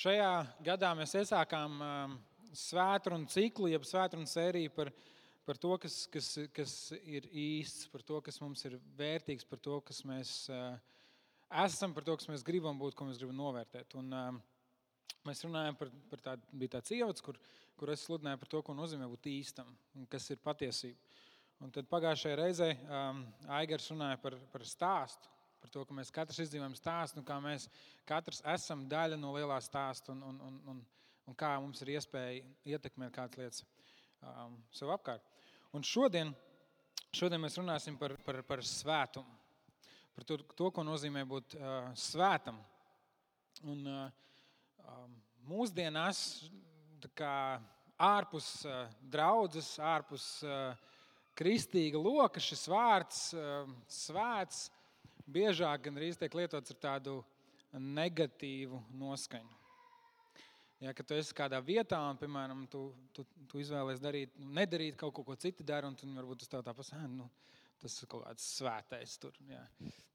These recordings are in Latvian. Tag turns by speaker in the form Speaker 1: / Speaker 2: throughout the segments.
Speaker 1: Šajā gadā mēs iesākām svētkrunu ciklu, jeb svētkrunu sēriju par to, kas ir īsts, par to, kas mums ir vērtīgs, par to, kas mēs esam, par to, kas mēs gribam būt, ko mēs gribam novērtēt. Un mēs runājam par tādu, bija tāds ievads, kur es sludināju par to, ko nozīmē būt īstam un kas ir patiesība. Un tad pagājušajā reizē Aigars runāja par stāstu. Par to, ka mēs katrs izdzīvojam stāstu, un kā mēs katrs esam daļa no lielā stāsta, un kā mums ir iespēja ietekmēt kādas lietas sev apkārt. Un šodien mēs runāsim par svētumu, par to, ko nozīmē būt svētam. Un mūsdienās ārpus draudzes, ārpus kristīga loka šis vārds svēts biežāk gandrīz tiek lietots ar tādu negatīvu noskaņu. Ja, kad tu esi kādā vietā un, piemēram, tu izvēlies nedarīt kaut ko citi dara, un varbūt uz tev tā pasaka, tas ir kaut kāds svētais tur, ja,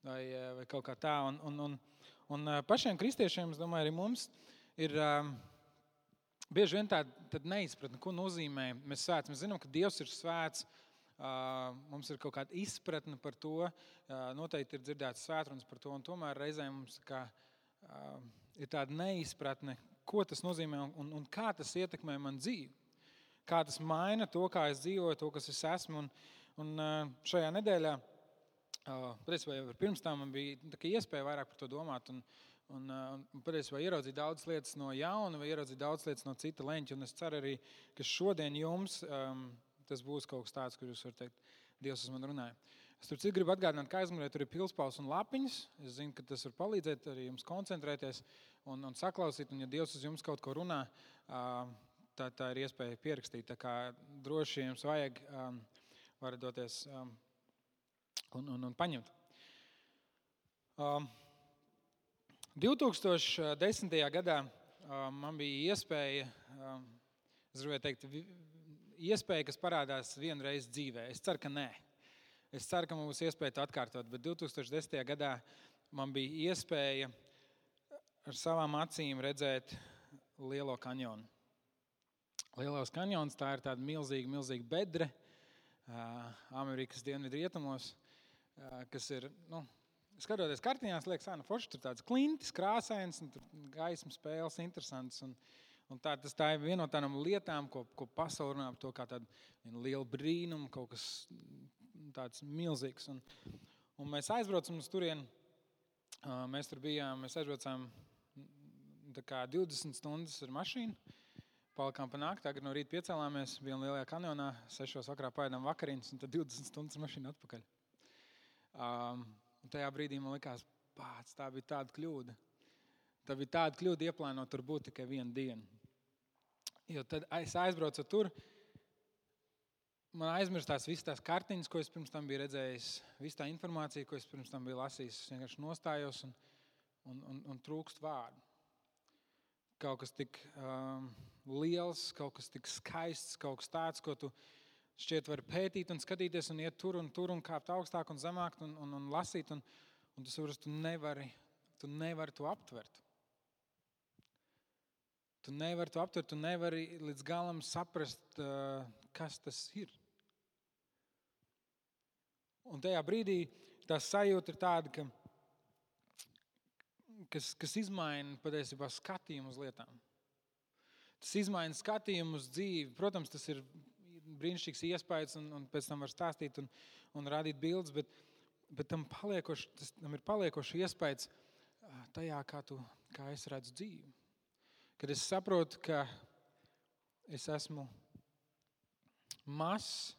Speaker 1: vai kaut kā tā. Un pašiem kristiešiem, es domāju, arī mums ir bieži vien tāda neizpratne, ko nozīmē mēs svēts. Mēs zinām, ka Dievs ir svēts. Mums ir kaut kāda izpratne par to, noteikti ir dzirdēts svētrunas par to, un tomēr reizēm mums ir tāda neizpratne, ko tas nozīmē un kā tas ietekmē man dzīvi. Kā tas maina to, kā es dzīvoju, to, kas es esmu. Un šajā nedēļā, patiesībā jau pirms tam man bija iespēja vairāk par to domāt un patiesībā ieraudzīt daudzas lietas no jauna vai ieraudzīt daudzas lietas no cita leņķa. Un es ceru arī, ka šodien jums tas būs kaut kas tāds, kur jūs varat teikt, Dievs uz mani runāja. Es tur gribu atgādināt, ka aizmugurē tur ir pilspauss un lapiņas. Es zinu, ka tas var palīdzēt arī jums koncentrēties un saklausīt. Un ja Dievs uz jums kaut ko runā, tā ir iespēja pierakstīt. Tā kā droši jums vajag, varat doties un paņemt. 2010. gadā man bija iespēja, es gribēju teikt, iespēja, kas parādās vienreiz dzīvē. Es ceru, ka nē. Es ceru, ka man būs iespēja to atkārtot, bet 2010. gadā man bija iespēja ar savām acīm redzēt Lielo kanjonu. Lielos kanjons, tā ir tāda milzīga bedre Amerikas dienvidu rietumos, kas ir, skatoties kartiņās, liekas, forši tur tāds klintis, krāsains, un tur gaismas spēles interesants. Un tā ir viena no tādām lietām, ko pasaule runā par to kā tādu lielu brīnumu, kaut kas tāds milzīgs. Un mēs aizbraucam uz turieni, mēs tur bijām, mēs aizbraucām 20 stundas ar mašīnu, palikām pa nakti, tagad no rīta piecēlāmies, bijām Lielajā kanjonā, 6 vakarā paēdām vakariņas, un tad 20 stundas ar mašīnu atpakaļ. Un tajā brīdī man likās, tā bija tāda kļūda. Tā bija tāda kļūda ieplānot tur būt tikai vienu dienu. Jo tad es aizbraucu tur, man aizmirstās visas tās kartiņas, ko es pirms tam biju redzējis, visa tā informācija, ko es pirms tam biju lasījis. Es vienkārši nostājos un trūkst vārdu. Kaut kas tik liels, kaut kas tik skaists, kaut kas tāds, ko tu šķiet vari pētīt un skatīties un iet tur un kāpt augstāk un zemāk un lasīt. Un tu saproti, tu nevari to aptvert. Tu nevari to aptvert, tu nevari līdz galam saprast, kas tas ir. Un tajā brīdī tā sajūta ir tāda, kas izmaina patiesībā skatījumu uz lietām. Tas izmaina skatījumu uz dzīvi. Protams, tas ir brīnišķīgs iespējas un pēc tam var stāstīt un rādīt bildes, bet tam ir paliekoši iespējas tajā, kā es redzu dzīvi. Kad es saprotu, ka es esmu mazs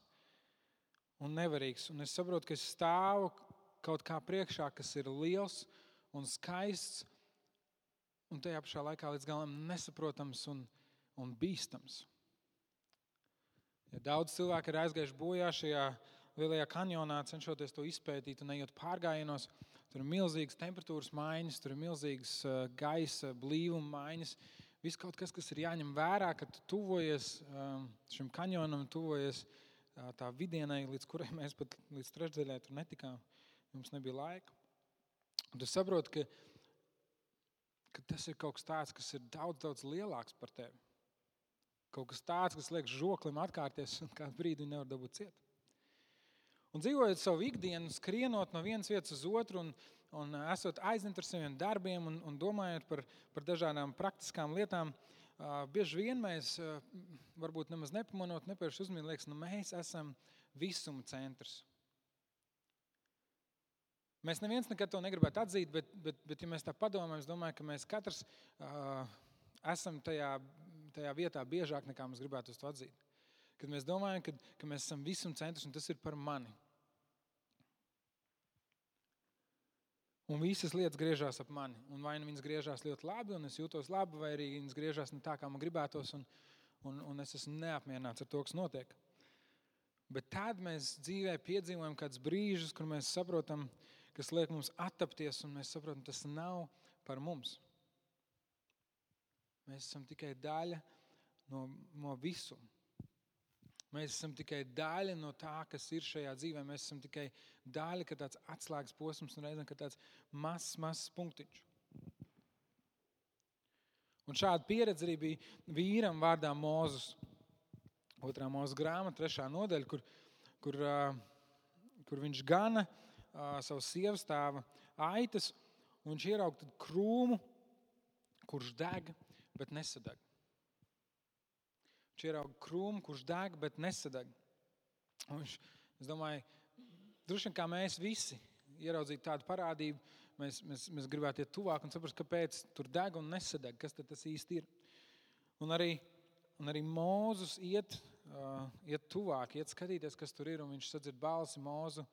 Speaker 1: un nevarīgs, un es saprotu, ka es stāvu kaut kā priekšā, kas ir liels un skaists, un tajā pašā laikā līdz galam nesaprotams un bīstams. Ja daudz cilvēku ir aizgājuši bojā šajā Lielajā kanjonā, cenšoties to izpētīt un ejot pārgājienos, tur ir milzīgas temperatūras maiņas, tur ir milzīgas gaisa blīvuma maiņas. Viss kaut kas ir jāņem vērā, kad tu tuvojies šim kanjonam, tuvojies tā vidienai, līdz kurai mēs pat līdz trešdaļai tur netikām. Mums nebija laika. Un tu saproti, ka tas ir kaut kas tāds, kas ir daudz, daudz lielāks par tevi. Kaut kas tāds, kas liek žoklim atkārties un kādu brīdi nevar dabūt ciet. Un dzīvojot savu ikdienu, skrienot no vienas vietas uz otru un esot aizņemt ar saviem darbiem un domājot par dažādām praktiskām lietām, bieži vien mēs, varbūt nemaz nepamanot, nepērši uzmanīgi liekas, mēs esam visuma centrs. Mēs neviens nekad to negribētu atzīt, bet ja mēs tā padomājam, es domāju, ka mēs katrs esam tajā vietā biežāk nekā mēs gribētu to atzīt. Kad mēs domājam, ka mēs esam visuma centrs un tas ir par mani. Un visas lietas griežās ap mani. Un vai nu viņas griežās ļoti labi un es jūtos labi, vai arī viņas griežās ne tā, kā man gribētos un es esmu neapmierināts ar to, kas notiek. Bet tad mēs dzīvē piedzīvojam kādus brīžus, kur mēs saprotam, kas liek mums attapties, un mēs saprotam, tas nav par mums. Mēs esam tikai daļa no visuma. Mēs esam tikai daļa no tā, kas ir šajā dzīvē. Mēs esam tikai daļa, ka tāds atslēgas posms un reizēm, ka tāds mazs punktiņš. Un šāda pieredze arī bija vīram vārdā Mozus. 2. Mūzes grāmata, 3. nodaļa, kur viņš gana savu sievas tēva aitas, un viņš ieraug krūmu, kurš deg, bet nesadeg. Viņš ieraug krūmu, kurš deg, bet nesadeg. Un es domāju, droši vien kā mēs visi ieraudzītu tādu parādību, mēs gribētu iet tuvāk un saprast, kāpēc tur deg un nesadeg, kas tad tas īsti ir. Un arī Mozus iet tuvāk, iet skatīties, kas tur ir, un viņš sadzird balsi Mozu.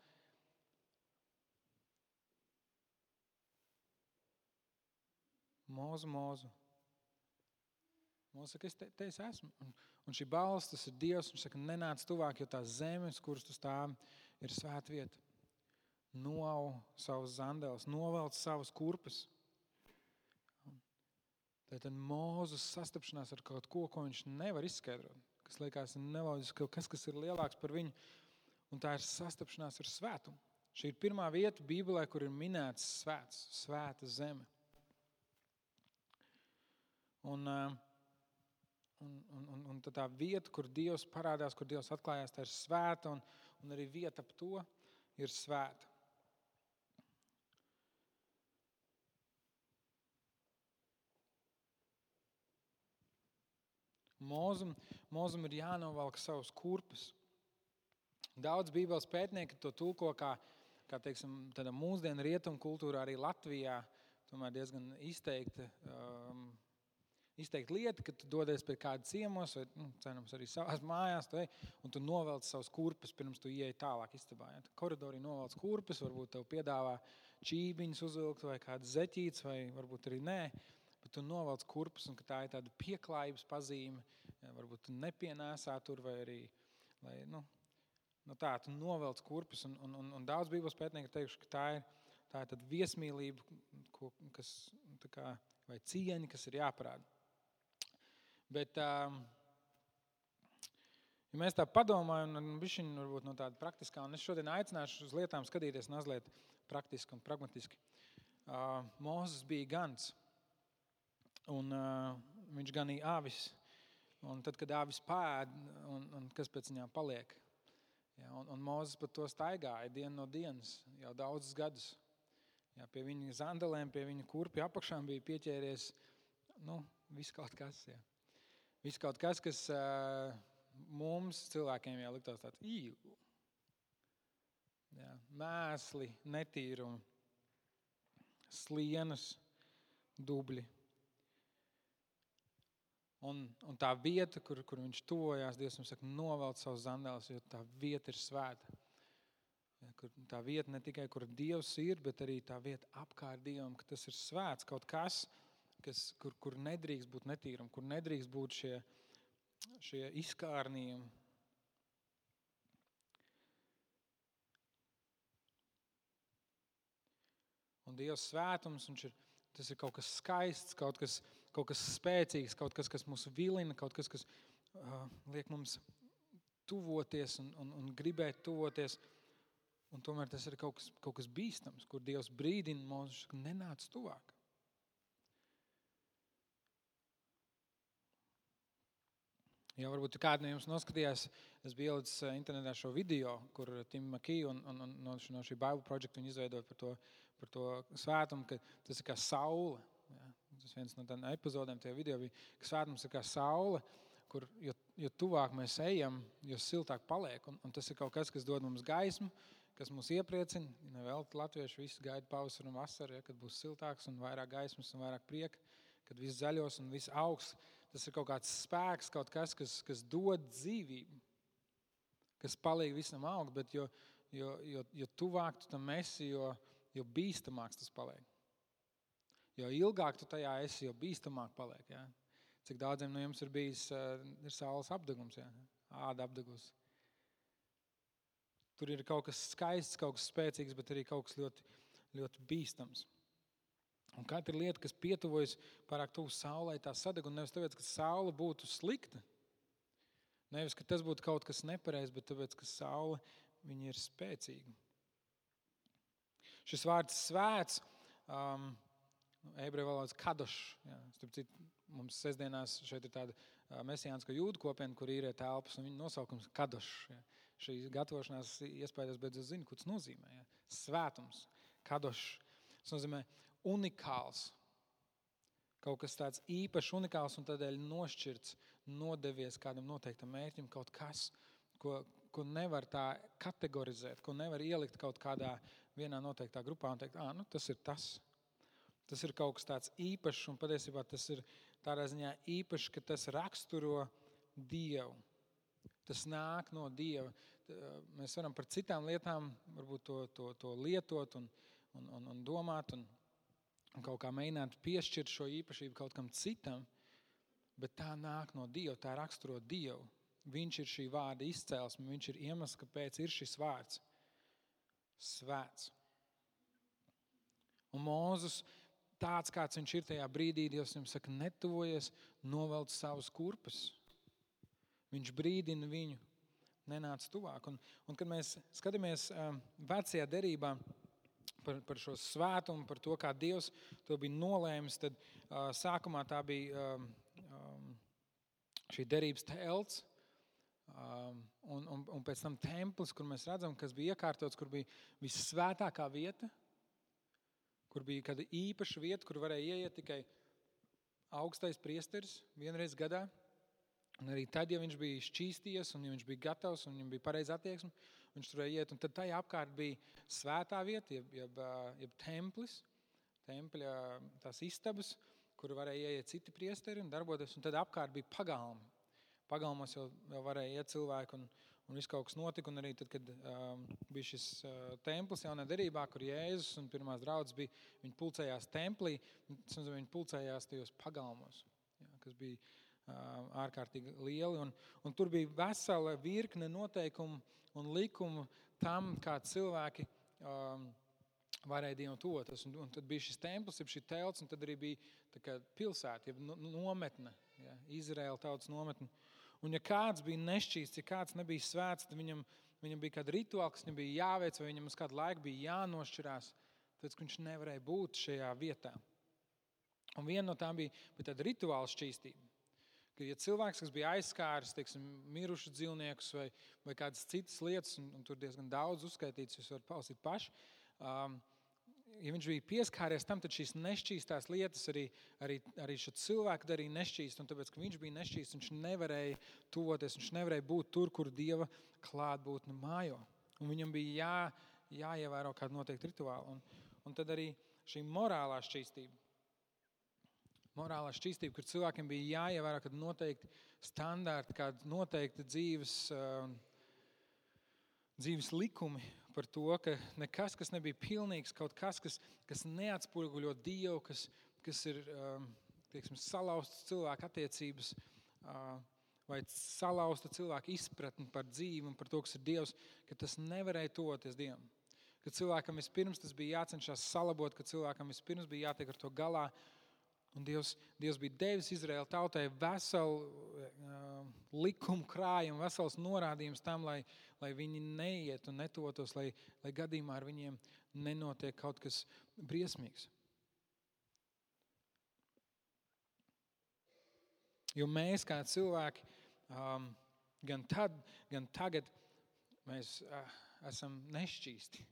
Speaker 1: Mozu. Mozus saka, te es esmu. Un šī balss, tas ir Dievs, viņš saka, nenāc tuvāk, jo tās zemes, kuras tu stāvi, ir svēta vieta. Noau savus zandeles, novelc savus kurpes. Tad Mozus sastapšanās ar kaut ko viņš nevar izskaidrot, kas liekas neloģiski, kas ir lielāks par viņu, un tā ir sastapšanās ar svētumu. Šī ir pirmā vieta Bībelē, kur ir minēts svēta zeme. Un tā vieta, kur Dievs parādās, kur Dievs atklājās, tā ir svēta, un arī vieta ap to ir svēta. Mozum ir jānovelk savus kurpes. Daudz Bībeles pētnieki to tulko kā teiksim, tādā mūsdienu rietumu kultūrā, arī Latvijā, tomēr diezgan izteikta lieta, ka tu dodies pie kāda ciemos vai, cerams, arī savās mājās, un tu novelc savus kurpes, pirms tu ieej tālāk istabā. Ja? Koridorī novelc kurpes, varbūt tev piedāvā čībiņus uzvilkt vai kādas zeķītes, vai varbūt arī nē. Bet tu novelc kurpes, un ka tā ir tāda pieklājības pazīme, ja, varbūt tu nepienēsā tur, vai arī, tu novelc kurpes, un daudz Bībeles pētnieki teikuši, ka tā ir tāda viesmīlība, vai cieņa, kas ir jāparāda. Bet, ja mēs tā padomājam, bišķiņ varbūt no tāda praktiskā, un es šodien aicināšu uz lietām skatīties mazliet praktiski un pragmatiski. Mozus bija gans. Un viņš ganīja āvis, un tad, kad āvis pāēd, un kas pēc viņām paliek. Ja, un Mozus pat to staigāja dienu no dienas, jau daudzus gadus. Ja, pie viņa zandelēm, pie viņa kurpju apakšām bija pieķēries, viss kaut kas. Ja. Viss kaut kas, kas mums cilvēkiem jau liktos tāds ja, mēsli, netīrumi, slienas, dubļi. Un tā vieta, kur viņš tuvojās, Dievs mums saka, novelc savus zandeles, jo tā vieta ir svēta. Ja, tā vieta ne tikai, kur Dievs ir, bet arī tā vieta apkārt Dievam, ka tas ir svēts kaut kas, kur nedrīkst būt netīrumi, kur nedrīkst būt šie izkārnījumi. Un Dievs svētums, tas ir kaut kas skaists, kaut kas spēcīgs, kaut kas, kas mūs vilina, kaut kas, kas liek mums tuvoties un gribēt tuvoties. Un tomēr tas ir kaut kas bīstams, kur Dievs brīdina mūs, ka nenāc tuvāk. Ja varbūt kādi no jums noskatījās, es biju ielicis internetā šo video, kur Tim McKee un no šī Bible Project viņi izveidoja par to svētumu, ka tas ir kā saule. Ja? Tas viens no tādiem epizodēm tajā video bija, ka svētums ir kā saule, kur jo tuvāk mēs ejam, jo siltāk paliek. Un tas ir kaut kas, kas dod mums gaismu, kas mūs iepriecina. Vēl latvieši visi gaida pavasaru un vasaru, ja, kad būs siltāks un vairāk gaismas un vairāk prieka, kad viss zaļos un viss augs. Tas ir kaut kāds spēks, kaut kas, kas dod dzīvību, kas palīdz visam augt, bet jo tuvāk tu tam esi, jo bīstamāks tas paliek. Jo ilgāk tu tajā esi, jo bīstamāk paliek. Ja? Cik daudziem no jums ir bijis ir saules apdegums, ja? Āda apdegus. Tur ir kaut kas skaists, kaut kas spēcīgs, bet arī kaut kas ļoti, ļoti bīstams. Un katra lieta, kas pietuvojas pārāk tuvu saulei, tā sadeg, un nevis tāpēc, ka saule būtu slikta. Nevis, ka tas būtu kaut kas nepareizs, bet tāpēc, ka saule viņa ir spēcīga. Šis vārds svēts, ebreju valodas kadošs. Ja, mums sestdienās šeit ir tāda mesijānska jūdu kopiena, kur īrē telpas, un viņa nosaukums kadošs. Ja. Šī gatavošanās iespējas, bet es zinu, ko tas nozīmē. Ja. Svētums, kadošs. Tas nozīmē unikāls. Kaut kas tāds īpašs, unikāls un tādēļ nošķirts, nodevies kādam noteiktam mērķim, kaut kas, ko nevar tā kategorizēt, ko nevar ielikt kaut kādā vienā noteiktā grupā un teikt, tas ir tas. Tas ir kaut kas tāds īpašs, un patiesībā tas ir tādā ziņā īpašs, ka tas raksturo Dievu. Tas nāk no Dieva. Mēs varam par citām lietām varbūt to lietot un domāt un kaut kā mēģināt piešķirt šo īpašību kaut kam citam, bet tā nāk no Dieva, tā raksturo Dievu. Viņš ir šī vārda izcēlesme, viņš ir iemesls, kāpēc ir šis vārds. Svēts. Un Mūzes tāds, kāds viņš ir tajā brīdī, Dievs viņam saka, netuvojies, novelc savus kurpes. Viņš brīdina viņu, nenāc tuvāk. Un kad mēs skatāmies vecajā derībā par šo svētumu, par to, kā Dievs to bija nolēmis, tad sākumā tā bija šī derības telts, un pēc tam templis, kur mēs redzam, kas bija iekārtots, kur bija vissvētākā vieta, kur bija kāda īpaša vieta, kur varēja ieiet tikai augstais priesteris vienreiz gadā. Un arī tad, ja viņš bija šķīsties un ja viņš bija gatavs un viņam bija pareiza attieksme, viņš tur varēja iet. Un tad tajā apkārt bija svētā vieta, jeb templis, tempļa tās istabas, kur varēja ieiet citi priesteri un darboties. Un tad apkārt bija pagalmi. Pagalmos jau varēja iet cilvēki un viss kaut kas notika. Un arī tad, kad bija šis templis jaunā derībā, kur Jēzus un pirmās draudzes bija, viņi pulcējās templī, viņi pulcējās tajos pagalmos, kas bija ārkārtīgi lieli. Un tur bija vesela virkne noteikumu un likumu tam, kā cilvēki varēja Dievam tuvoties. Un tad bija šis templis, šī telts, un tad arī bija tā kā pilsēta, nometne, Izraēla tautas nometne. Un ja kāds bija nešķīsts, ja kāds nebija svēts, tad viņam bija kāda rituāla, kas viņam bija jāveic, vai viņam uz kādu laiku bija jānošķirās, tāpēc, ka viņš nevarēja būt šajā vietā. Un viena no tām bija tāda rituāla šķīstība. Ka, ja cilvēks, kas bija aizskāris, teiksim, mirušus dzīvniekus vai kādas citas lietas, un tur diezgan daudz uzskaitīts, jūs varat palasīt paši, ja viņš bija pieskāries tam, tad šīs nešķīstās lietas arī šo cilvēku darīja nešķīst, un tāpēc, ka viņš bija nešķīst, viņš nevarēja tuvoties, viņš nevarēja būt tur, kur Dieva klātbūtne mājo. Un viņam bija jāievēro kādu noteiktu rituālu. Un tad arī šī morālā šķīstība. Morālā šķīstība, kur cilvēkiem bija jāievēro kādi noteikti standarti, kādi noteikti dzīves likumi par to, ka nekas, kas nebija pilnīgs, kaut kas neatspoguļo Dievu, kas ir, teiksim, salauztas cilvēku attiecības vai salauzta cilvēku izpratni par dzīvi un par to, kas ir Dievs, ka tas nevarēja tuvoties Dievam. Ka cilvēkam vispirms tas bija jācenšas salabot, ka cilvēkam vispirms bija jātiek ar to galā. Un Dievs bija devis Izraēla tautai veselu likumu krājumu, vesels norādījums tam, lai viņi neiet un netuvotos, lai gadījumā ar viņiem nenotiek kaut kas briesmīgs. Jo mēs kā cilvēki gan tad, gan tagad mēs esam nešķīsti.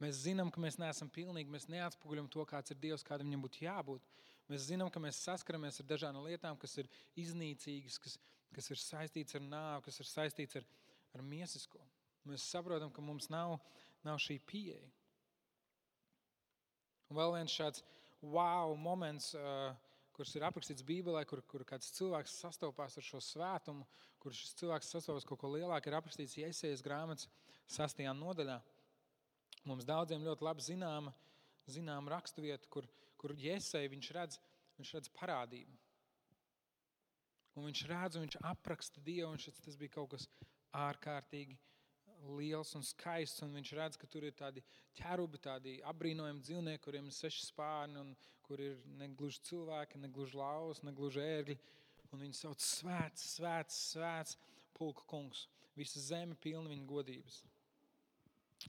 Speaker 1: Mēs zinām, ka mēs neesam pilnīgi, mēs neatspoguļam to, kāds ir Dievs, kādam viņam būtu jābūt. Mēs zinām, ka mēs saskaramies ar dažādām lietām, kas ir iznīcīgas, kas ir saistīts ar nāvi, kas ir saistīts ar miesisko. Mēs saprotam, ka mums nav šī pieeja. Un vēl viens šāds wow moments, kurš ir aprakstīts Bībelē, kur kāds cilvēks sastopās ar šo svētumu, kur šis cilvēks sastopās kaut ko lielāku, ir aprakstīts Jesajas grāmatas 6. nodaļā. Mums daudziem ļoti labi zināma raksturvieta, kur Jesaja viņš redz parādību. Un viņš redz un viņš apraksta Dievu, un tas bija kaut kas ārkārtīgi liels un skaists, un viņš redz, ka tur ir tādi ķerubi, tādi apbrīnojami dzīvnieki, kuriem ir 6 spārni, un kur ir negluži cilvēki, negluži lauvas, negluži ērgļi. Un viņi sauc svēts, svēts, svēts pulka kungs. Visa zeme pilna viņa godības.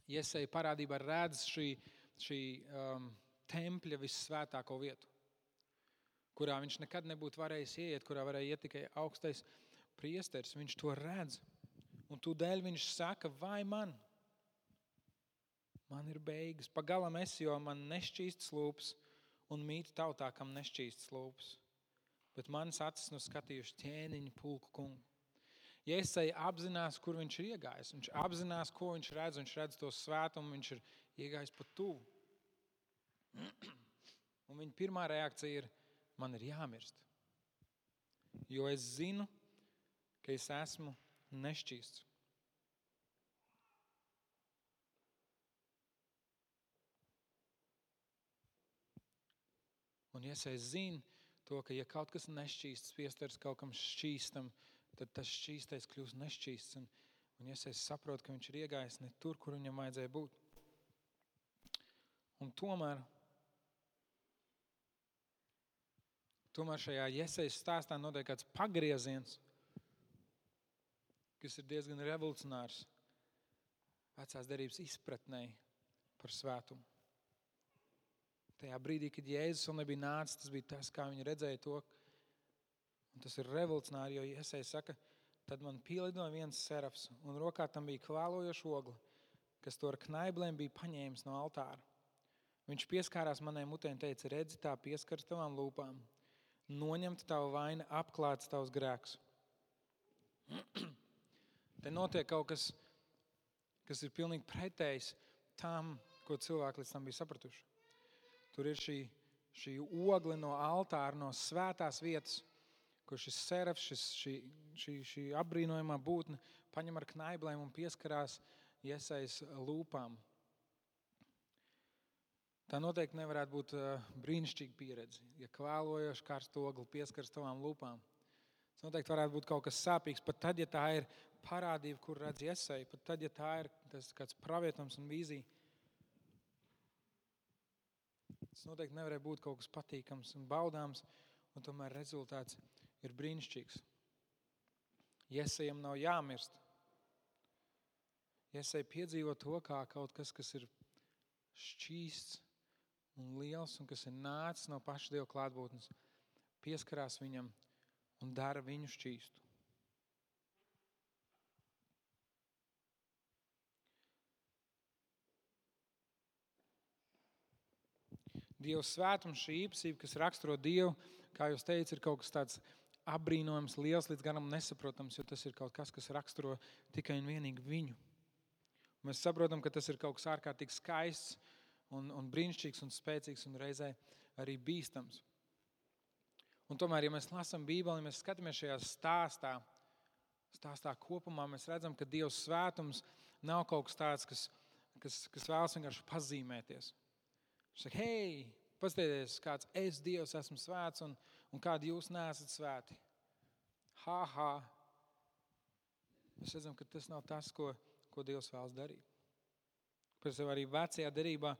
Speaker 1: Jesaja parādībā redz šī tempļa vissvētāko vietu, kurā viņš nekad nebūtu varējis ieiet, kurā varēja iet tikai augstais priesteris. Viņš to redz. Un tūdēļ viņš saka, vai man ir beigas. Pagalam es, jo man nešķīstas lūpas un mīt tautā, kam nešķīstas lūpas. Bet manas acis skatījuši ķēniņu pulku kungu. Jesaja apzinās, kur viņš ir iegājis. Viņš apzinās, ko viņš redz to svētumu, viņš ir iegājis pat tuvu. Un viņa pirmā reakcija ir, man ir jāmirst. Jo es zinu, ka es esmu nešķīsts. Un Jesaja zina to, ka ja kaut kas nešķīsts, piestars kaut kam šķīstam, tad tas šķīstais kļūst nešķīsts. Un Jesaja saprot, ka viņš ir iegājis ne tur, kur viņam vajadzēja būt. Un tomēr šajā Jesajas stāstā notiek kāds pagrieziens, kas ir diezgan revolucionārs vecās derības izpratnē par svētumu. Tajā brīdī, kad Jēzus vēl nebija nācis, tas bija tas, kā viņi redzēja to. Un tas ir revolucionāri, jo Jesaja saka, tad man pielidoja viens serafs, un rokā tam bija kvēlojoša ogla, kas to ar knaiblēm bija paņēmis no altāra. Viņš pieskārās manai mutē un teica, redzi, tā pieskaras tavām lūpām. Noņemta tava vaina, apklāts tavs grēks. Te notiek kaut kas, kas ir pilnīgi pretējs tam, ko cilvēki līdz tam bija sapratuši. Tur ir šī ogle no altāra, no svētās vietas, kur šis serafs, šī apbrīnojamā būtne paņem ar knaiblēm un pieskarās Jesajas lūpām. Tā noteikti nevarētu būt brīnišķīga pieredze, ja kvēlojoši karstu ogli pieskaras tavām lūpām. Tas noteikti varētu būt kaut kas sāpīgs, pat tad, ja tā ir parādība, kur redz Jesaja, pat tad, ja tā ir tas kāds pravietums un vīzija. Tas noteikti nevarēja būt kaut kas patīkams un baudāms, un tomēr rezultāts ir brīnišķīgs. Jesajam nav jāmirst. Jesaja piedzīvo to kā kaut kas, kas ir šķīsts un liels, un kas ir nācis no paša Dieva klātbūtnes, pieskarās viņam un dara viņu šķīstu. Dieva svētums, šī īpašība, kas raksturo Dievu, kā jūs teicat, ir kaut kas tāds apbrīnojams, liels, līdz garam nesaprotams, jo tas ir kaut kas, kas raksturo tikai un vienīgi viņu. Mēs saprotam, ka tas ir kaut kas ārkārtīgi skaists un brīnišķīgs un spēcīgs un reizē arī bīstams. Un tomēr, ja mēs lasām Bībeli, ja mēs skatāmies šajā stāstā kopumā, mēs redzam, ka Dieva svētums nav kaut kas tāds, kas vēlas vienkārši pazīmēties. Viņš saka, hei, paskatieties, kāds es, Dievs, esmu svēts un kādi jūs neesat svēti. Mēs redzam, ka tas nav tas, ko Dievs vēlas darīt. Pēc tam arī vecajā derībā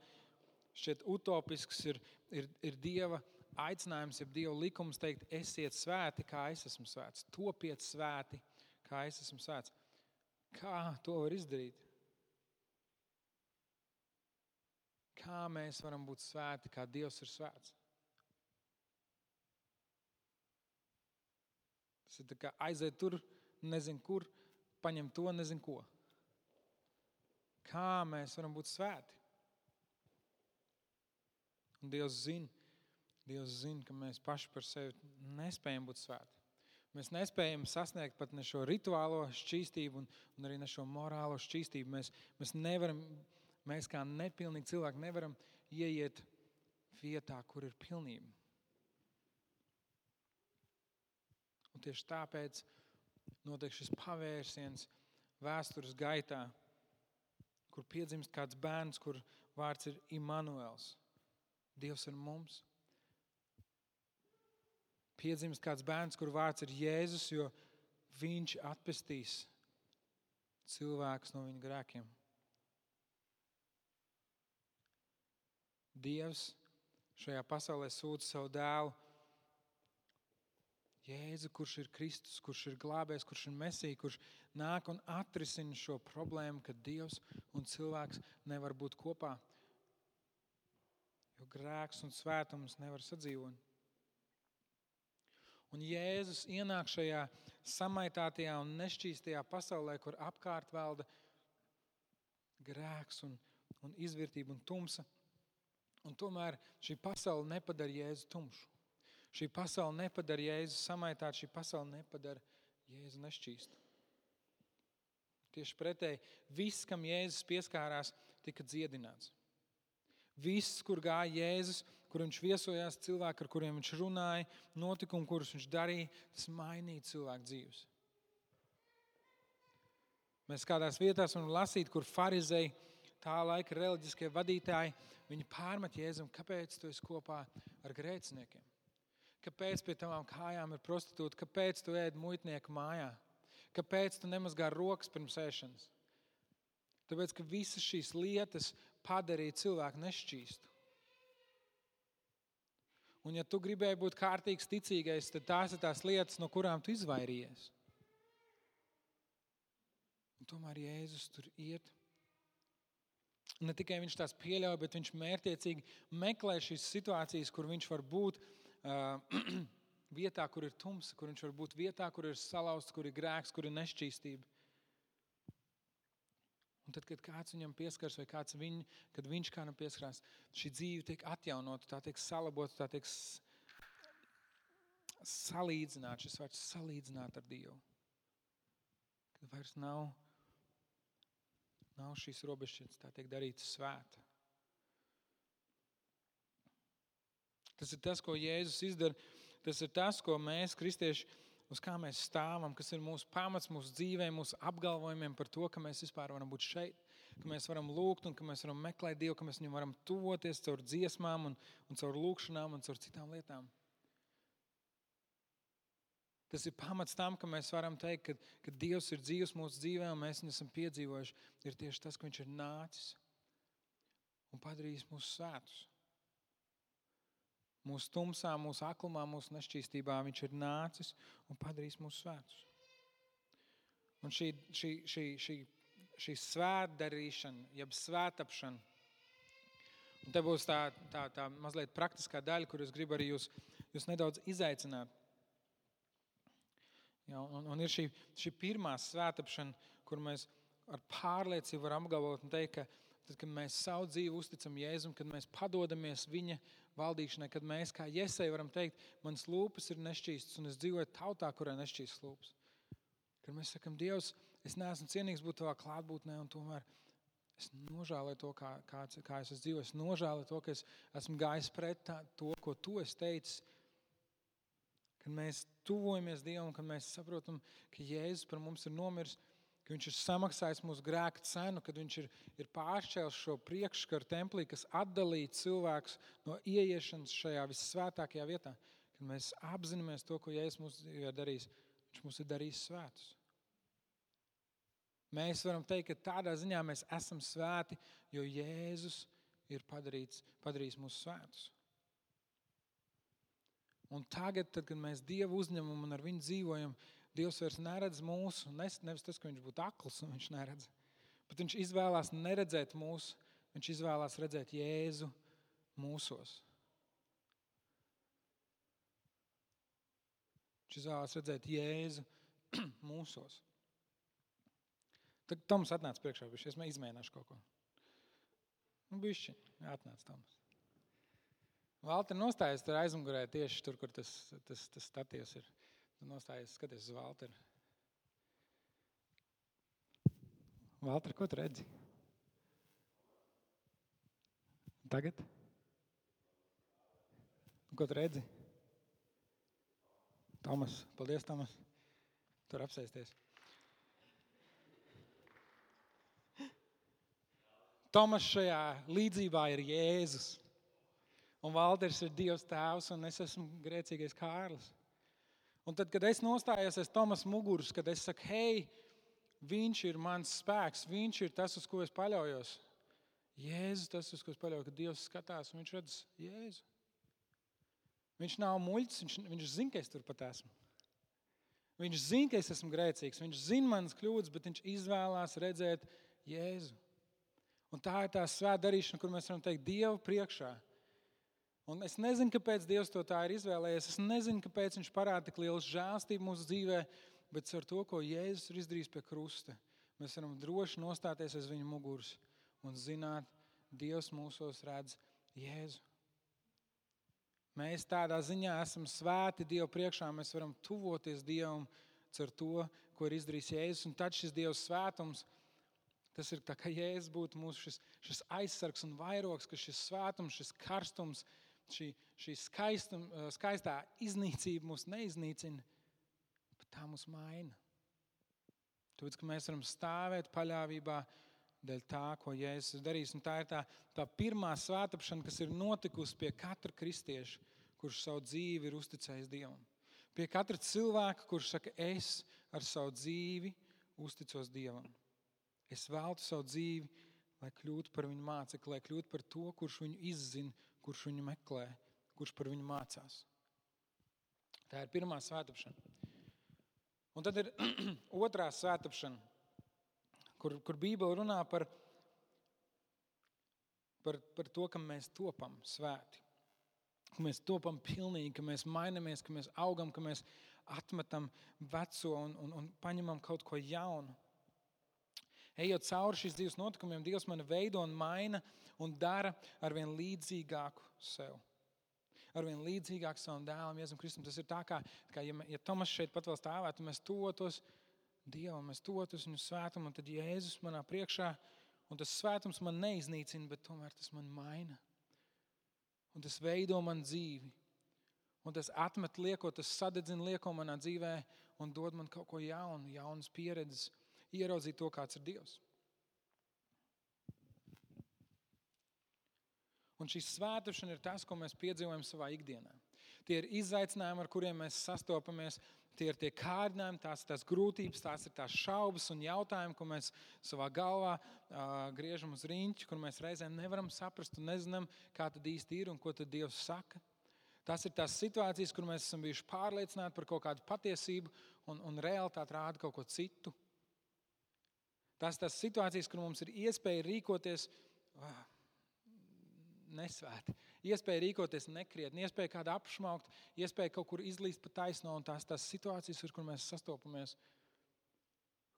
Speaker 1: šķiet utopisks ir Dieva aicinājums, ja Dieva likums teikt, esiet svēti, kā es esmu svēts. Topiet svēti, kā es esmu svēts. Kā to var izdarīt? Kā mēs varam būt svēti, kā Dievs ir svēts? Tas ir tā kā aiziet tur, nezinu kur, paņem to, nezinu ko. Kā mēs varam būt svēti? Un Dievs zina, ka mēs paši par sevi nespējam būt svēti. Mēs nespējam sasniegt pat ne šo rituālo šķīstību un arī ne šo morālo šķīstību. Mēs nevaram, mēs kā nepilnīgi cilvēki nevaram ieiet vietā, kur ir pilnība. Un tieši tāpēc notiek šis pavērsiens vēstures gaitā, kur piedzimst kāds bērns, kur vārds ir Immanuels. Dievs ir mums. Piedzimst kāds bērns, kur vārds ir Jēzus, jo viņš atpestīs cilvēkus no viņa grēkiem. Dievs šajā pasaulē sūta savu dēlu Jēzu, kurš ir Kristus, kurš ir glābējs, kurš ir Mesija, kurš nāk un atrisina šo problēmu, ka Dievs un cilvēks nevar būt kopā, jo grēks un svētums nevar sadzīvot. Un Jēzus ienāk šajā samaitātajā un nešķīstajā pasaulē, kur apkārt valda grēks un izvirtība un tumsa. Un tomēr šī pasaule nepadara Jēzu tumšu. Šī pasaule nepadara Jēzu samaitātu, šī pasaule nepadara Jēzu nešķīstu. Tieši pretēji, viss, kam Jēzus pieskārās, tika dziedināts. Viss, kur gāja Jēzus, kur viņš viesojās, cilvēki, ar kuriem viņš runāja, notikumi, kurus viņš darīja, tas mainīja cilvēku dzīves. Mēs kādās vietās varam lasīt, kur farizeji, tā laika reliģiskie vadītāji, viņi pārmet Jēzum, kāpēc tu esi kopā ar grēciniekiem? Kāpēc pie tavām kājām ir prostitūta? Kāpēc tu ēd muitnieku mājā? Kāpēc tu nemazgā rokas pirms ēšanas? Tāpēc, ka visas šīs lietas padarīja cilvēku nešķīstu. Un ja tu gribēji būt kārtīgs ticīgais, tad tās ir tās lietas, no kurām tu izvairījies. Un tomēr Jēzus tur iet. Ne tikai viņš tās pieļauj, bet viņš mērķiecīgi meklē šīs situācijas, kur viņš var būt vietā, kur ir tumsa, kur viņš var būt vietā, kur ir salauzts, kur ir grēks, kur ir nešķīstība. Un tad, kad kāds viņam pieskars vai kad viņš kādam pieskarās, šī dzīve tiek atjaunota, tā tiek salabota, tā tiek salīdzināta, šis vārds salīdzināt ar Dievu. Kad vairs nav šīs robežšķirtnes, tā tiek darīta svēta. Tas ir tas, ko Jēzus izdara. Tas ir tas, ko mēs, kristieši, uz kā mēs stāvam, kas ir mūsu pamats, mūsu dzīvē, mūsu apgalvojumiem par to, ka mēs vispār varam būt šeit, ka mēs varam lūgt un ka mēs varam meklēt Dievu, ka mēs viņam varam tuvoties caur dziesmām un caur lūgšanām un caur citām lietām. Tas ir pamats tam, ka mēs varam teikt, ka Dievs ir dzīvs mūsu dzīvē un mēs viņu esam piedzīvojuši. Ir tieši tas, ka viņš ir nācis un padarījis mūs svētus. Mūsu tumsā, mūsu aklumā, mūsu nešķīstībā viņš ir nācis un padarījis mūsu svētus. Un šī svētdarīšana, jeb svētapšana, un te būs tā mazliet praktiskā daļa, kur es gribu arī jūs nedaudz izaicināt. Ja, un ir šī pirmā svētapšana, kur mēs ar pārliecību varam apgalvot un teikt, ka tad, kad mēs savu dzīvi uzticam Jēzum, kad mēs padodamies viņa valdīšanai, kad mēs kā Jesai varam teikt, manas lūpas ir nešķīstas un es dzīvoju tautā, kurā nešķīstas lūpas. Kad mēs sakam, Dievs, es neesmu cienīgs būt tavā klātbūtnē un tomēr es nožēloju to, kā es esmu dzīvojis. Es nožēloju to, ka es esmu gājis pret to, ko tu esi teicis. Kad mēs tuvojamies Dievam, kad mēs saprotam, ka Jēzus par mums ir nomiris, ka viņš ir samaksājis mūsu grēka cenu, kad viņš ir pāršķēlis šo priekšskaru templī, kas atdalīja cilvēkus no ieiešanas šajā vissvētākajā vietā. Kad mēs apzināmies to, ko Jēzus mums ir darījis, viņš mums ir darījis svētus. Mēs varam teikt, ka tādā ziņā mēs esam svēti, jo Jēzus ir padarījis mūsu svētus. Un tagad, tad, kad mēs Dievu uzņemam un ar viņu dzīvojam, Dievs vairs neredz mūsu, nevis tas, ka viņš būtu akls un viņš neredz, bet viņš izvēlās neredzēt mūsu, viņš izvēlās redzēt Jēzu mūsos. Viņš izvēlās redzēt Jēzu mūsos. Tad Toms atnāca priekšā, es izmēģināšu kaut ko. Bišķi, atnāc Toms. Valter nostājies tur aizmugurē tieši tur, kur tas statīvs ir. Tu nostājies, skaties uz Valteru. Valter, ko tu redzi? Tagad? Ko tu redzi? Tomas, paldies, Tomas. Tur apsēsties. Tomas šajā līdzībā ir Jēzus. Un Valters ir Dievs tēvs, un es esmu grēcīgais Kārlis. Un tad, kad es nostājos aiz Tomas muguras, kad es saku, hei, viņš ir mans spēks, viņš ir tas, uz ko es paļaujos. Jēzus tas, uz ko es paļaujos, kad Dievs skatās, un viņš redz Jēzu. Viņš nav muļķis, viņš zina, ka es tur pat esmu. Viņš zina, ka es esmu grēcīgs, viņš zina manas kļūdas, bet viņš izvēlās redzēt Jēzu. Un tā ir tā svēta darīšana, kur mēs varam teikt Dievu priekšā. Un es nezinu, kāpēc Dievs to tā ir izvēlējies. Es nezinu, kāpēc viņš parāda tik lielu žēlstību mūsu dzīvē, bet ar to, ko Jēzus ir izdarījis pie krusta, mēs varam droši nostāties aiz viņa muguras un zināt, Dievs mūsos redz Jēzu. Mēs tādā ziņā esam svēti Dievu priekšā, mēs varam tuvoties Dievam ar to, ko ir izdarījis Jēzus. Un tad šis Dieva svētums, tas ir tā, ka Jēzus būtu mūsu šis aizsargs un vairogs, ka šis svētums, šis karstums, šī skaistā iznīcība mūs neiznīcina, bet tā mūs maina. Tāpēc, ka mēs varam stāvēt paļāvībā dēļ tā, ko Jēzus ir darījis. Un tā ir tā pirmā svētapšana, kas ir notikusi pie katra kristieša, kurš savu dzīvi ir uzticējis Dievam. Pie katra cilvēka, kurš saka, es ar savu dzīvi uzticos Dievam. Es veltu savu dzīvi, lai kļūtu par viņu mācekli, lai kļūtu par to, kurš viņu izzina, kurš viņu meklē, kurš par viņu mācās. Tā ir pirmā svētapšana. Un tad ir otrā svētapšana, kur Bībele runā par to, ka mēs topam svēti. Ka mēs topam pilnīgi, ka mēs mainamies, ka mēs augam, ka mēs atmetam veco un paņemam kaut ko jaunu. Ejot cauri šīs dzīves notikumiem, Dievs mani veido un maina un dara arvien līdzīgāku sev. Arvien līdzīgāku savam dēlam, Jēzum Kristum. Tas ir tā, kā ja Tomas šeit pat vēl stāvētu, mēs tuvotos Dievam, mēs tuvotos viņu svētumu, un tad Jēzus manā priekšā, un tas svētums man neiznīcina, bet tomēr tas man maina. Un tas veido man dzīvi. Un tas atmet lieko, tas sadedzina lieko manā dzīvē un dod man kaut ko jaunu, jaunas pieredzes. Ieraudzīt to, kāds ir Dievs. Un šī svētāšana ir tas, ko mēs piedzīvojam savā ikdienā. Tie ir izaicinājumi, ar kuriem mēs sastopamies. Tie ir tie kārdinājumi, tās grūtības, tās ir tās šaubas un jautājumi, ko mēs savā galvā griežam uz riņķi, kur mēs reizēm nevaram saprast un nezinām, kā tad īsti ir un ko tad Dievs saka. Tās ir tās situācijas, kur mēs esam bijuši pārliecināti par kaut kādu patiesību un realitāti rāda kaut ko citu. Tās situācijas, kur mums ir iespēja rīkoties nesvēti, iespēja rīkoties nekrietni, iespēja kādu apšmaukt, iespēja kaut kur izlīst pa taisno, un tās situācijas, ar kur mēs sastopamies,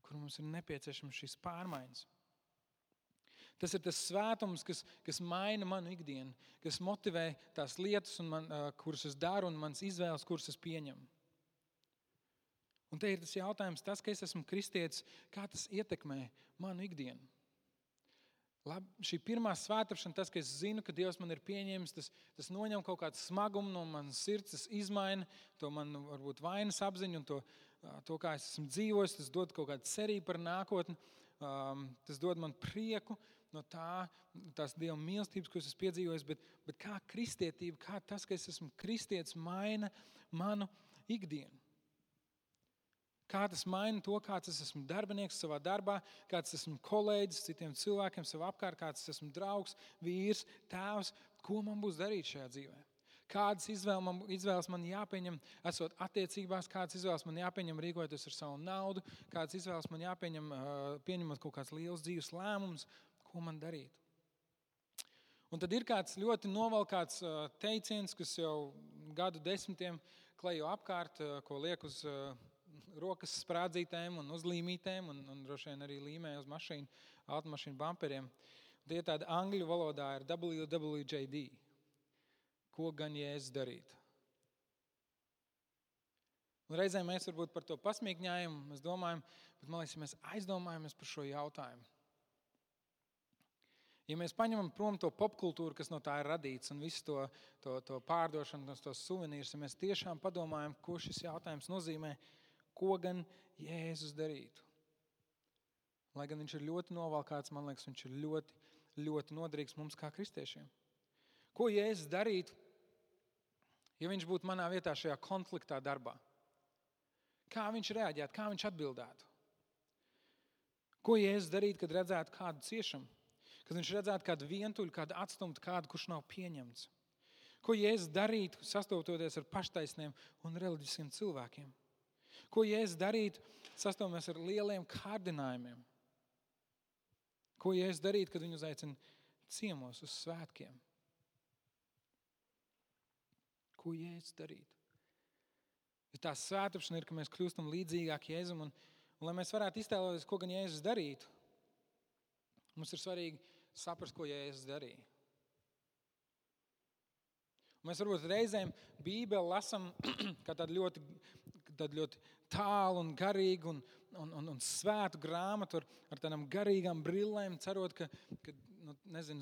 Speaker 1: kur mums ir nepieciešams šīs pārmaiņas. Tas ir tas svētums, kas maina manu ikdienu, kas motivē tās lietas, kuras es daru, un manas izvēles, kuras es pieņemu. Un te ir tas jautājums, tas, ka es esmu kristietis, kā tas ietekmē manu ikdienu. Šī pirmā svētāšana, tas, ka es zinu, ka Dievs man ir pieņēmis, tas noņem kaut kādu smagumu no manas sirds, tas izmaina to manu varbūt vainas apziņu un to, kā es esmu dzīvojis, tas dod kaut kādu cerību par nākotni, tas dod man prieku no tās Dieva mīlestības, ko es esmu piedzīvojis, bet kā kristietība, kā tas, ka es esmu kristietis, maina manu ikdienu. Kā tas maina to, kāds es esmu darbinieks savā darbā, kāds esmu kolēģis citiem cilvēkiem savā apkārt, kāds esmu draugs, vīrs, tēvs, ko man būs darīt šajā dzīvē. Kādas izvēles man jāpieņem, esot attiecībās, kādas izvēles man jāpieņem, rīkojoties ar savu naudu, kādas izvēles man jāpieņem, pieņemot kaut kāds liels dzīves lēmums, ko man darīt. Un tad ir kāds ļoti novalkāts teiciens, kas jau gadu desmitiem klejo apkārt, ko liek uz rokas sprādzītēm un uzlīmītēm un droši vien arī līmē uz mašīnu, automašīnu bamperiem. Tie tādi angļu valodā ir WWJD. Ko gan Jēzus darītu? Un reizēm mēs varbūt par to pasmīkņājam, mēs domājam, bet man liekas, ja mēs aizdomājamies par šo jautājumu. Ja mēs paņemam prom to popkultūru, kas no tā ir radīts, un visu to pārdošanu, tos suvenīrus, ja mēs tiešām padomājam, ko šis jautājums nozīmē, ko gan Jēzus darītu. Lai gan viņš ir ļoti novalkāts, man liekas, viņš ir ļoti, ļoti noderīgs mums kā kristiešiem. Ko Jēzus darītu, ja viņš būtu manā vietā šajā konfliktā darbā? Kā viņš reaģētu, kā viņš atbildētu? Ko Jēzus darītu, kad redzētu kādu ciešanu? Kad viņš redzētu kādu vientuļu, kādu atstumtu, kādu, kurš nav pieņemts. Ko Jēzus darītu, sastopoties ar paštaisniem un reliģiskiem cilvēkiem? Ko Jēzus darītu, sastopamies ar lieliem kārdinājumiem? Ko Jēzus darītu, kad viņu uzaicina ciemos uz svētkiem? Ko Jēzus darītu? Ja tā svētāpšana ir, ka mēs kļūstam līdzīgāk Jēzum, un lai mēs varētu iztēloties, ko gan Jēzus darītu, mums ir svarīgi saprast, ko Jēzus darīja. Un mēs varbūt reizēm Bībeli lasam kā tādu ļoti tālu un garīgu un svētu grāmatu ar tādām garīgām brillēm, cerot, ka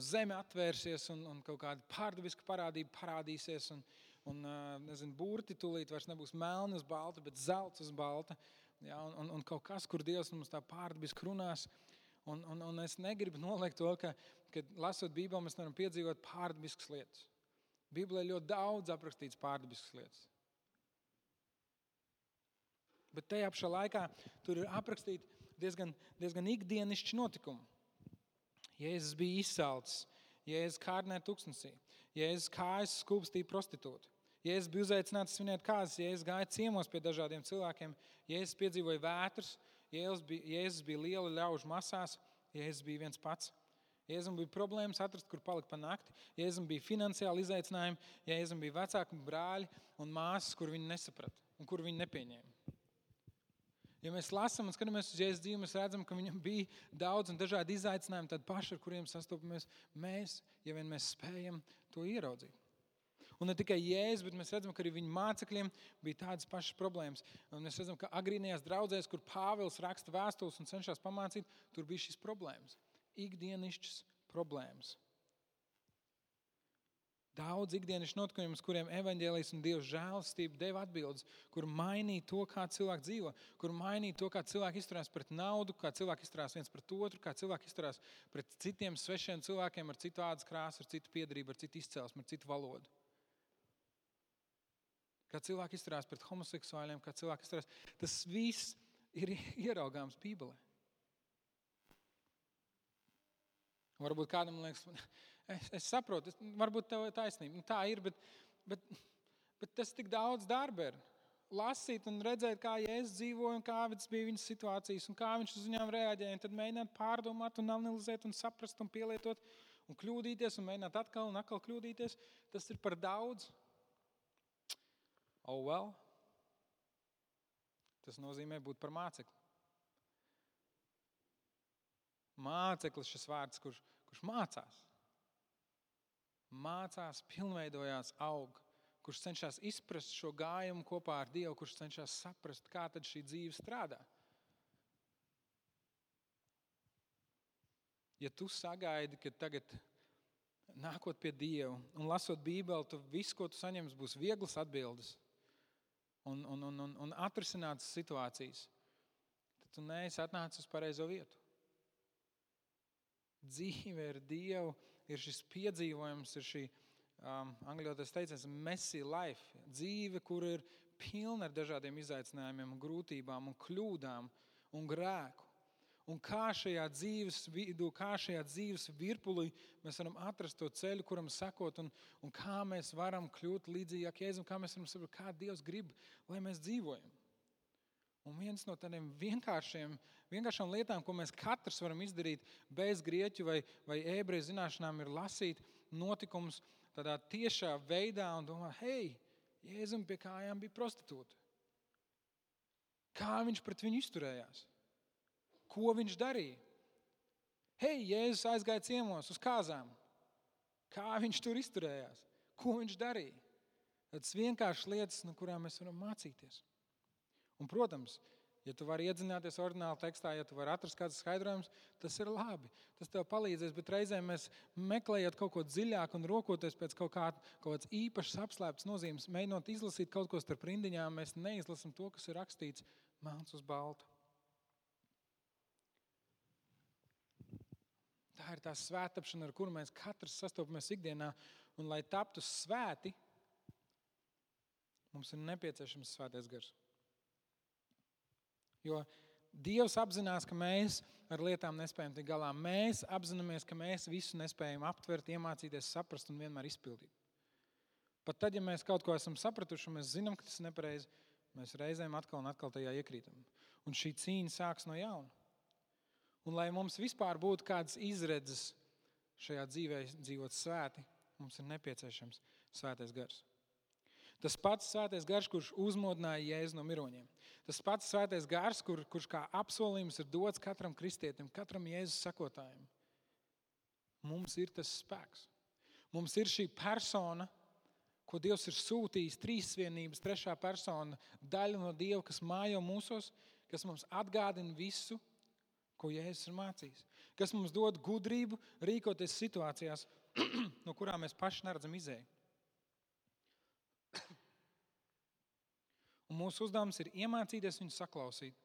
Speaker 1: zeme atvērsies un kaut kāda pārdabiska parādība parādīsies un burti tūlīt vairs nebūs melni uz balta, bet zelts uz balta. Ja, un kaut kas, kur Dievs mums tā pārdabiski runās. Un es negribu noliekt to, ka lasot Bībeli, mēs varam piedzīvot pārdabiskas lietas. Bībelē ļoti daudz aprakstīts pārdabiskas lietas. Bet tajā pašā laikā tur ir aprakstīti diezgan ikdienišķi notikumi. Jēzus bija izsalcis, Jēzus kārdināja tuksnesī, Jēzus kājas skūpstīja prostitūtu, Jēzus bija uzaicināts svinēt kāzas, Jēzus gāja ciemos pie dažādiem cilvēkiem, Jēzus piedzīvoja vētras, Jēzus bija liela ļaužu masās, Jēzus bija viens pats. Jēzum bija problēmas atrast, kur palikt pa nakti. Jēzum bija finansiāli izaicinājumi, Jēzum bija vecāki brāļi un māsas, kur viņi nesaprata un kur viņi nepieņēma. Ja mēs lasām un skatāmies uz Jēzus dzīvi, mēs redzam, ka viņam bija daudz un dažādi izaicinājumi, tādi paši, ar kuriem sastopamies mēs, ja vien mēs spējam to ieraudzīt. Un ne tikai Jēzus, bet mēs redzam, ka arī viņa mācekļiem bija tādas pašas problēmas. Un mēs redzam, ka agrīnajās draudzēs, kur Pāvils raksta vēstules un cenšas pamācīt, tur bija šīs problēmas. Ikdienišķas problēmas. Daudz ikdienišķu notikumus, kuriem evaņģēlijs un Dieva žēlastība deva atbildes, kur mainīja to, kā cilvēki dzīvo, kur mainīja to, kā cilvēki izturās pret naudu, kā cilvēki izturās viens pret otru, kā cilvēki izturās pret citiem svešiem cilvēkiem ar citu ādas krāsu, ar citu piedarību, ar citu izcelsmi, ar citu valodu. Kā cilvēki izturās pret homoseksuāļiem, kā cilvēki izturās. Tas viss ir ieraugāms Bībelē. Varbūt kādam liekas, es saprotu, varbūt tev ir taisnība. Tā ir, bet tas tik daudz darba ir. Lasīt un redzēt, kā Jēzus dzīvoja un kādas bija viņas situācijas un kā viņš uz viņām reaģēja. Un tad mēģināt pārdomāt un analizēt un saprast un pielietot un kļūdīties un mēģināt atkal un atkal kļūdīties. Tas ir par daudz. Oh well. Tas nozīmē būt par mācekli. Māceklis šis vārds, kurš mācās. Mācās, pilnveidojās, aug. Kurš cenšas izprast šo gājumu kopā ar Dievu, kurš cenšas saprast, kā tad šī dzīve strādā. Ja tu sagaidi, ka tagad nākot pie Dieva un lasot Bībeli, tu visu, ko tu saņemsi, būs vieglas atbildes un atrisinātas situācijas, tad tu neesi atnācis uz pareizo vietu. Dzīve ar Dievu ir šis piedzīvojums, ir šī angļotais teiciens messy life. Dzīve, kur ir pilna ar dažādiem izaicinājumiem, un grūtībām, un kļūdām un grēku. Un kā šajā dzīves vidū, kā šajā dzīves virpulī mēs varam atrast to ceļu, kuram sekot, un kā mēs varam kļūt līdzīgāk Jēzum, kā mēs varam saprast, kā Dievs grib, lai mēs dzīvojam. Un viens no tādiem vienkāršām lietām, ko mēs katrs varam izdarīt bez grieķu vai ebreju zināšanām, ir lasīt notikumus tādā tiešā veidā un domāt, hei, Jēzum pie kājām bija prostitūta. Kā viņš pret viņu izturējās? Ko viņš darīja? Hei, Jēzus aizgāja ciemos uz kāzām. Kā viņš tur izturējās? Ko viņš darīja? Tas vienkāršas lietas, no kurām mēs varam mācīties. Un, protams, ja tu vari iedzināties oriģināla tekstā, ja tu vari atrast kāds skaidrojums, tas ir labi. Tas tev palīdzēs, bet reizēm mēs meklējot kaut ko dziļāk un rokoties pēc kaut kāds īpašs apslēpts nozīmes, mēģinot izlasīt kaut ko starp rindiņām, mēs neizlasam to, kas ir rakstīts melns uz balta. Tā ir tā svētapšana, ar kuru mēs katrs sastopamies ikdienā, un lai taptu svēti, mums ir nepieciešams svētais gars. Jo Dievs apzinās, ka mēs ar lietām nespējam tikt galā. Mēs apzināmies, ka mēs visu nespējam aptvert, iemācīties, saprast un vienmēr izpildīt. Pat tad, ja mēs kaut ko esam sapratuši un mēs zinām, ka tas ir nepareizi, mēs reizēm atkal un atkal tajā iekrītam. Un šī cīņa sāks no jauna. Un lai mums vispār būtu kādas izredzes šajā dzīvē dzīvot svēti, mums ir nepieciešams svētais gars. Tas pats svētais gars, kurš uzmodināja Jēzu no miroņiem. Tas pats svētais gars, kurš kā apsolījums ir dots katram kristietim, katram Jēzus sekotājiem. Mums ir tas spēks. Mums ir šī persona, ko Dievs ir sūtījis, trīsvienības, trešā persona, daļa no Dieva, kas mājo mūsos, kas mums atgādina visu, ko Jēzus ir mācījis. Kas mums dod gudrību rīkoties situācijās, no kurām mēs paši neredzam izēju. Un mūsu uzdevums ir iemācīties viņu saklausīt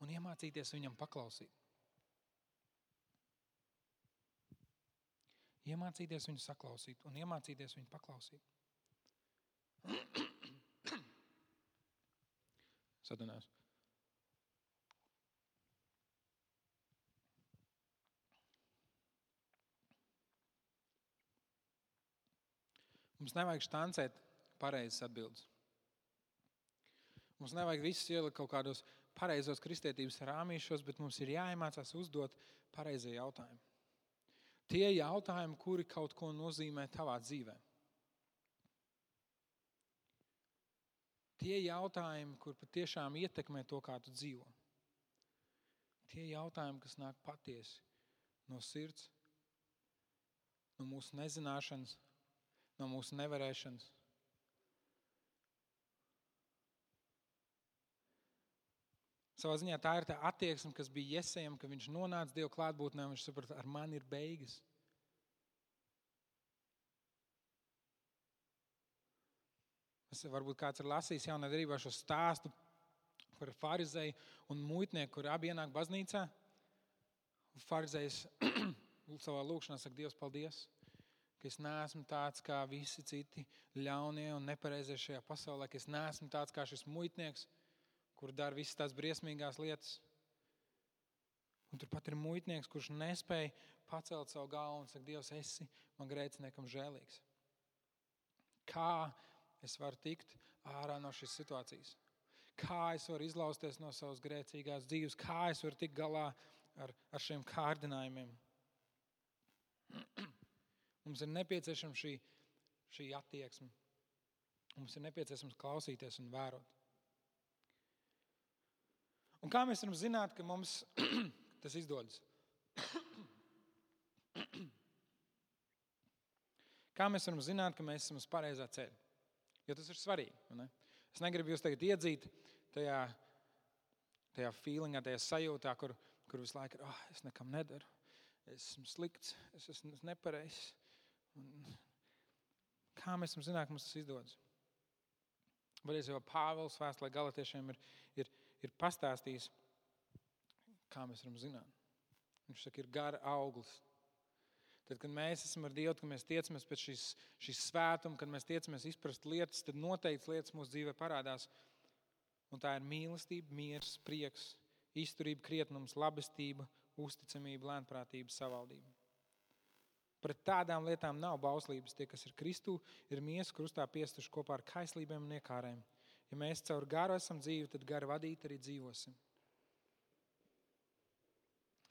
Speaker 1: un iemācīties viņam paklausīt. Iemācīties viņu saklausīt un iemācīties viņu paklausīt. Sadunās. Mums nevajag štancēt pareizas atbildes. Mums nevajag visus ielikt kaut kādos pareizos kristietības rāmīšos, bet mums ir jāiemācās uzdot pareizie jautājumi. Tie jautājumi, kuri kaut ko nozīmē tavā dzīvē. Tie jautājumi, kur patiešām ietekmē to, kā tu dzīvo. Tie jautājumi, kas nāk patiesi no sirds, no mūsu nezināšanas, no mūsu nevarēšanas. Savā ziņā tā ir tā attieksme, kas bija Jesejam, ka viņš nonāca Dieva klātbūtnē un viņš saprata, ar mani ir beigas. Varbūt kāds ir lasījis jaunā derībā šo stāstu par farizēju un muitnieku, kur abi ienāk baznīcā. Farizējs savā lūkšanā saka, Dievs, paldies, ka es neesmu tāds kā visi citi ļaunie un nepareizie šajā pasaulē, ka es neesmu tāds kā šis muitnieks, kur dara visas tās briesmīgās lietas. Un turpat ir muitnieks, kurš nespēja pacelt savu galvu un saka, Dievs, esi man grēciniekam žēlīgs. Kā es varu tikt ārā no šīs situācijas? Kā es varu izlausties no savas grēcīgās dzīves? Kā es varu tikt galā ar šiem kārdinājumiem? Mums ir nepieciešama šī attieksme. Mums ir nepieciešams klausīties un vērot. Un kā mēs varam zināt, ka mums tas izdodas? Kā mēs varam zināt, ka mēs esam uz pareizā ceļa? Jo tas ir svarīgi. Ne? Es negribu jūs tagad iedzīt tajā feelingā, tajā sajūtā, kur visu laiku ir, es nekam nedaru, es esmu slikts, es esmu nepareizs. Kā mēs varam zināt, ka mums tas izdodas? Varēs jau Pāvils vēstulē Galatiešiem ir pastāstījis, kā mēs varam zināt. Viņš saka, ir gara auglis. Tad, kad mēs esam ar Dievu, kad mēs tiecamies pēc šīs svētuma, kad mēs tiecamies izprast lietas, tad noteikts lietas mūsu dzīvē parādās. Un tā ir mīlestība, miers, prieks, izturība, krietnums, labestība, uzticamība, lēnprātība, savaldība. Pret tādām lietām nav bauslības. Tie, kas ir Kristū, ir miesu krustā piestuši kopā ar kaislībiem un iekārēm. Ja mēs caur garu esam dzīvi, tad garu vadīt arī dzīvosim.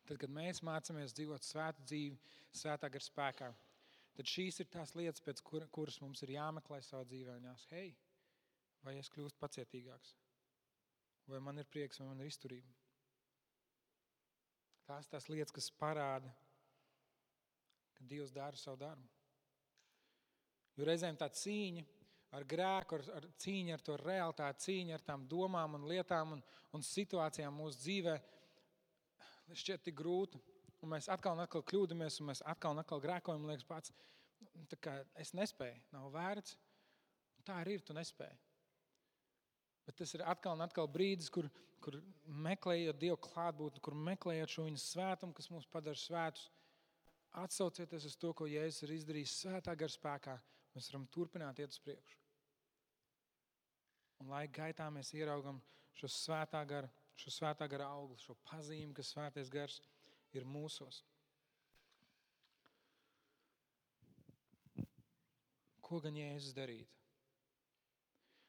Speaker 1: Tad, kad mēs mācāmies dzīvot svētu dzīvi, svētā gara spēkā, tad šīs ir tās lietas, pēc kuras mums ir jāmeklē savā dzīvē. Un jāsaka, hei, vai es kļūstu pacietīgāks? Vai man ir prieks, vai man ir izturība? Tās lietas, kas parāda, ka Dievs dara savu darbu. Jo reizēm tā cīņa ar grēku, cīņa ar to realitāti, cīņa ar tām domām un lietām un situācijām mūsu dzīvē šķiet tik grūta. Un mēs atkal un atkal kļūdamies, un mēs atkal un atkal grēkojam, liekas pats, tā kā es nespēju, nav vērts. Tā arī ir, tu nespēji. Bet tas ir atkal un atkal brīdis, kur meklējot Dievu klātbūtni, kur meklējot šo viņa svētumu, kas mūs padara svētus, atsaucieties uz to, ko Jēzus ir izdarījis svētā gara spēkā, mēs varam turpināt iet uz priekšu. Un laika gaitā mēs ieraugam šo svētā gara augli, šo pazīmi, ka svētais gars ir mūsos. Ko gan Jēzus darīt?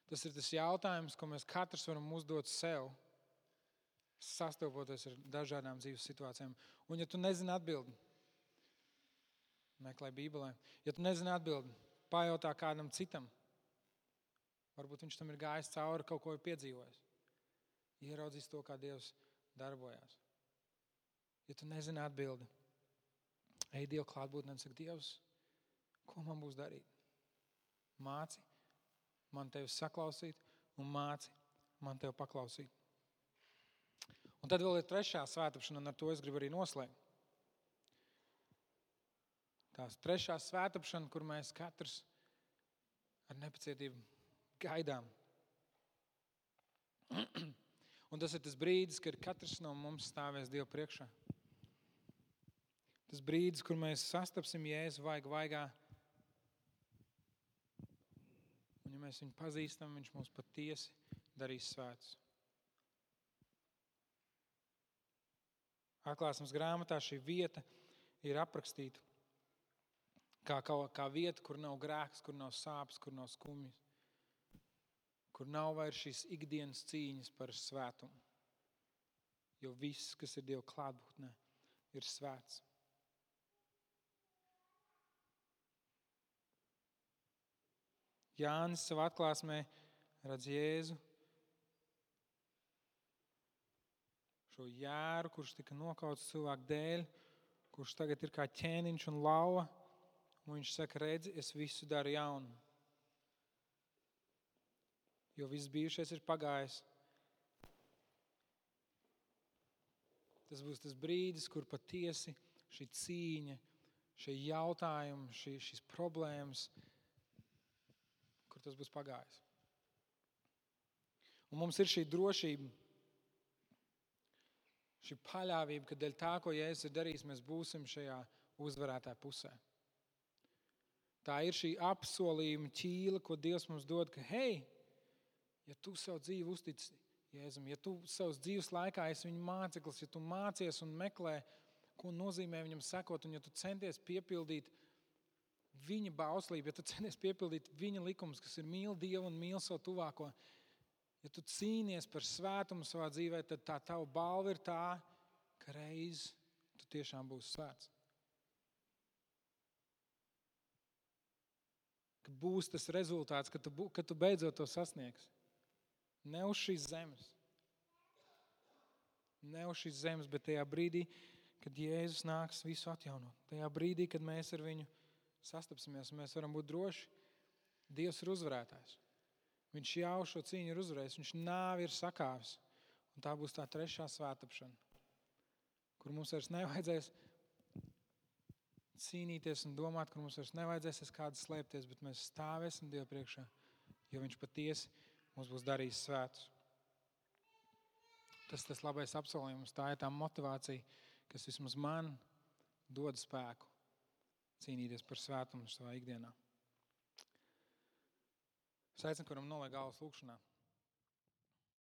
Speaker 1: Tas ir tas jautājums, ko mēs katrs varam uzdot sev, sastopoties ar dažādām dzīves situācijām. Un ja tu nezini atbildi, meklē Bībelē. Ja tu nezini atbildi, pajautā kādam citam. Varbūt viņš tam ir gājis cauri, kaut ko ir piedzīvojis. Ieraudzīs to, kā Dievs darbojās. Ja tu nezini atbildi, ej Dievu klātbūtnē un saka, Dievs, ko man būs darīt? Māci man tevi saklausīt un māci man tevi paklausīt. Un tad vēl ir trešā svētapšana, un ar to es gribu arī noslēgt. Tās trešā svētapšana, kur mēs katrs ar nepacietību gaidām. Un tas ir tas brīdis, kad katrs no mums stāvēs Dievu priekšā. Tas brīdis, kur mēs sastapsim Jēzu vaigā. Un ja mēs viņu pazīstam, viņš mūs patiesi darīs svētus. Atklāsmes grāmatā šī vieta ir aprakstīta kā vieta, kur nav grēks, kur nav sāpes, kur nav skumjas, kur nav vairs šīs ikdienas cīņas par svētumu. Jo viss, kas ir Dieva klātbūtnē, ir svēts. Jānis savā atklāsmē redz Jēzu, šo jēru, kurš tika nokauts cilvēku dēļ, kurš tagad ir kā ķēniņš un lauva, un viņš saka, redzi, es visu daru jaunu. Jo viss bijušais ir pagājis. Tas būs tas brīdis, kur patiesi šī cīņa, šie jautājumi, šīs problēmas, kur tas būs pagājis. Un mums ir šī drošība, šī paļāvība, ka dēļ tā, ko Jēzus ir darījis, mēs būsim šajā uzvarētāja pusē. Tā ir šī apsolījuma ķīla, ko Dievs mums dod, ka hei, ja tu savu dzīvi uztici Jēzum, ja tu savas dzīves laikā esi viņa māceklis, ja tu mācies un meklē, ko nozīmē viņam sekot, un ja tu centies piepildīt viņa bauslību, ja tu centies piepildīt viņa likumus, kas ir mīl Dievu un mīl savu tuvāko, ja tu cīnies par svētumu savā dzīvē, tad tā tava balva ir tā, ka reiz tu tiešām būsi svēts. Ka būs tas rezultāts, ka tu beidzot to sasniegsi. Ne uz šīs zemes. Ne uz šīs zemes, bet tajā brīdī, kad Jēzus nāks visu atjaunot. Tajā brīdī, kad mēs ar viņu sastapsimies, mēs varam būt droši. Dievs ir uzvarētājs. Viņš jau šo cīņu ir uzvarējis. Viņš nāvi ir sakāvis. Un tā būs tā trešā svētapšana, kur mums vairs nevajadzēs cīnīties un domāt, kur mums vairs nevajadzēs aiz kāda slēpties, bet mēs stāvēsim Dievu priekšā, jo viņš patiesi mums būs darījis svētus. Tas labais apsolījums, tā ir tā motivācija, kas vismaz man dod spēku cīnīties par svētumu savā ikdienā. Es aicinu, kuram noliek galvas lūkšanā.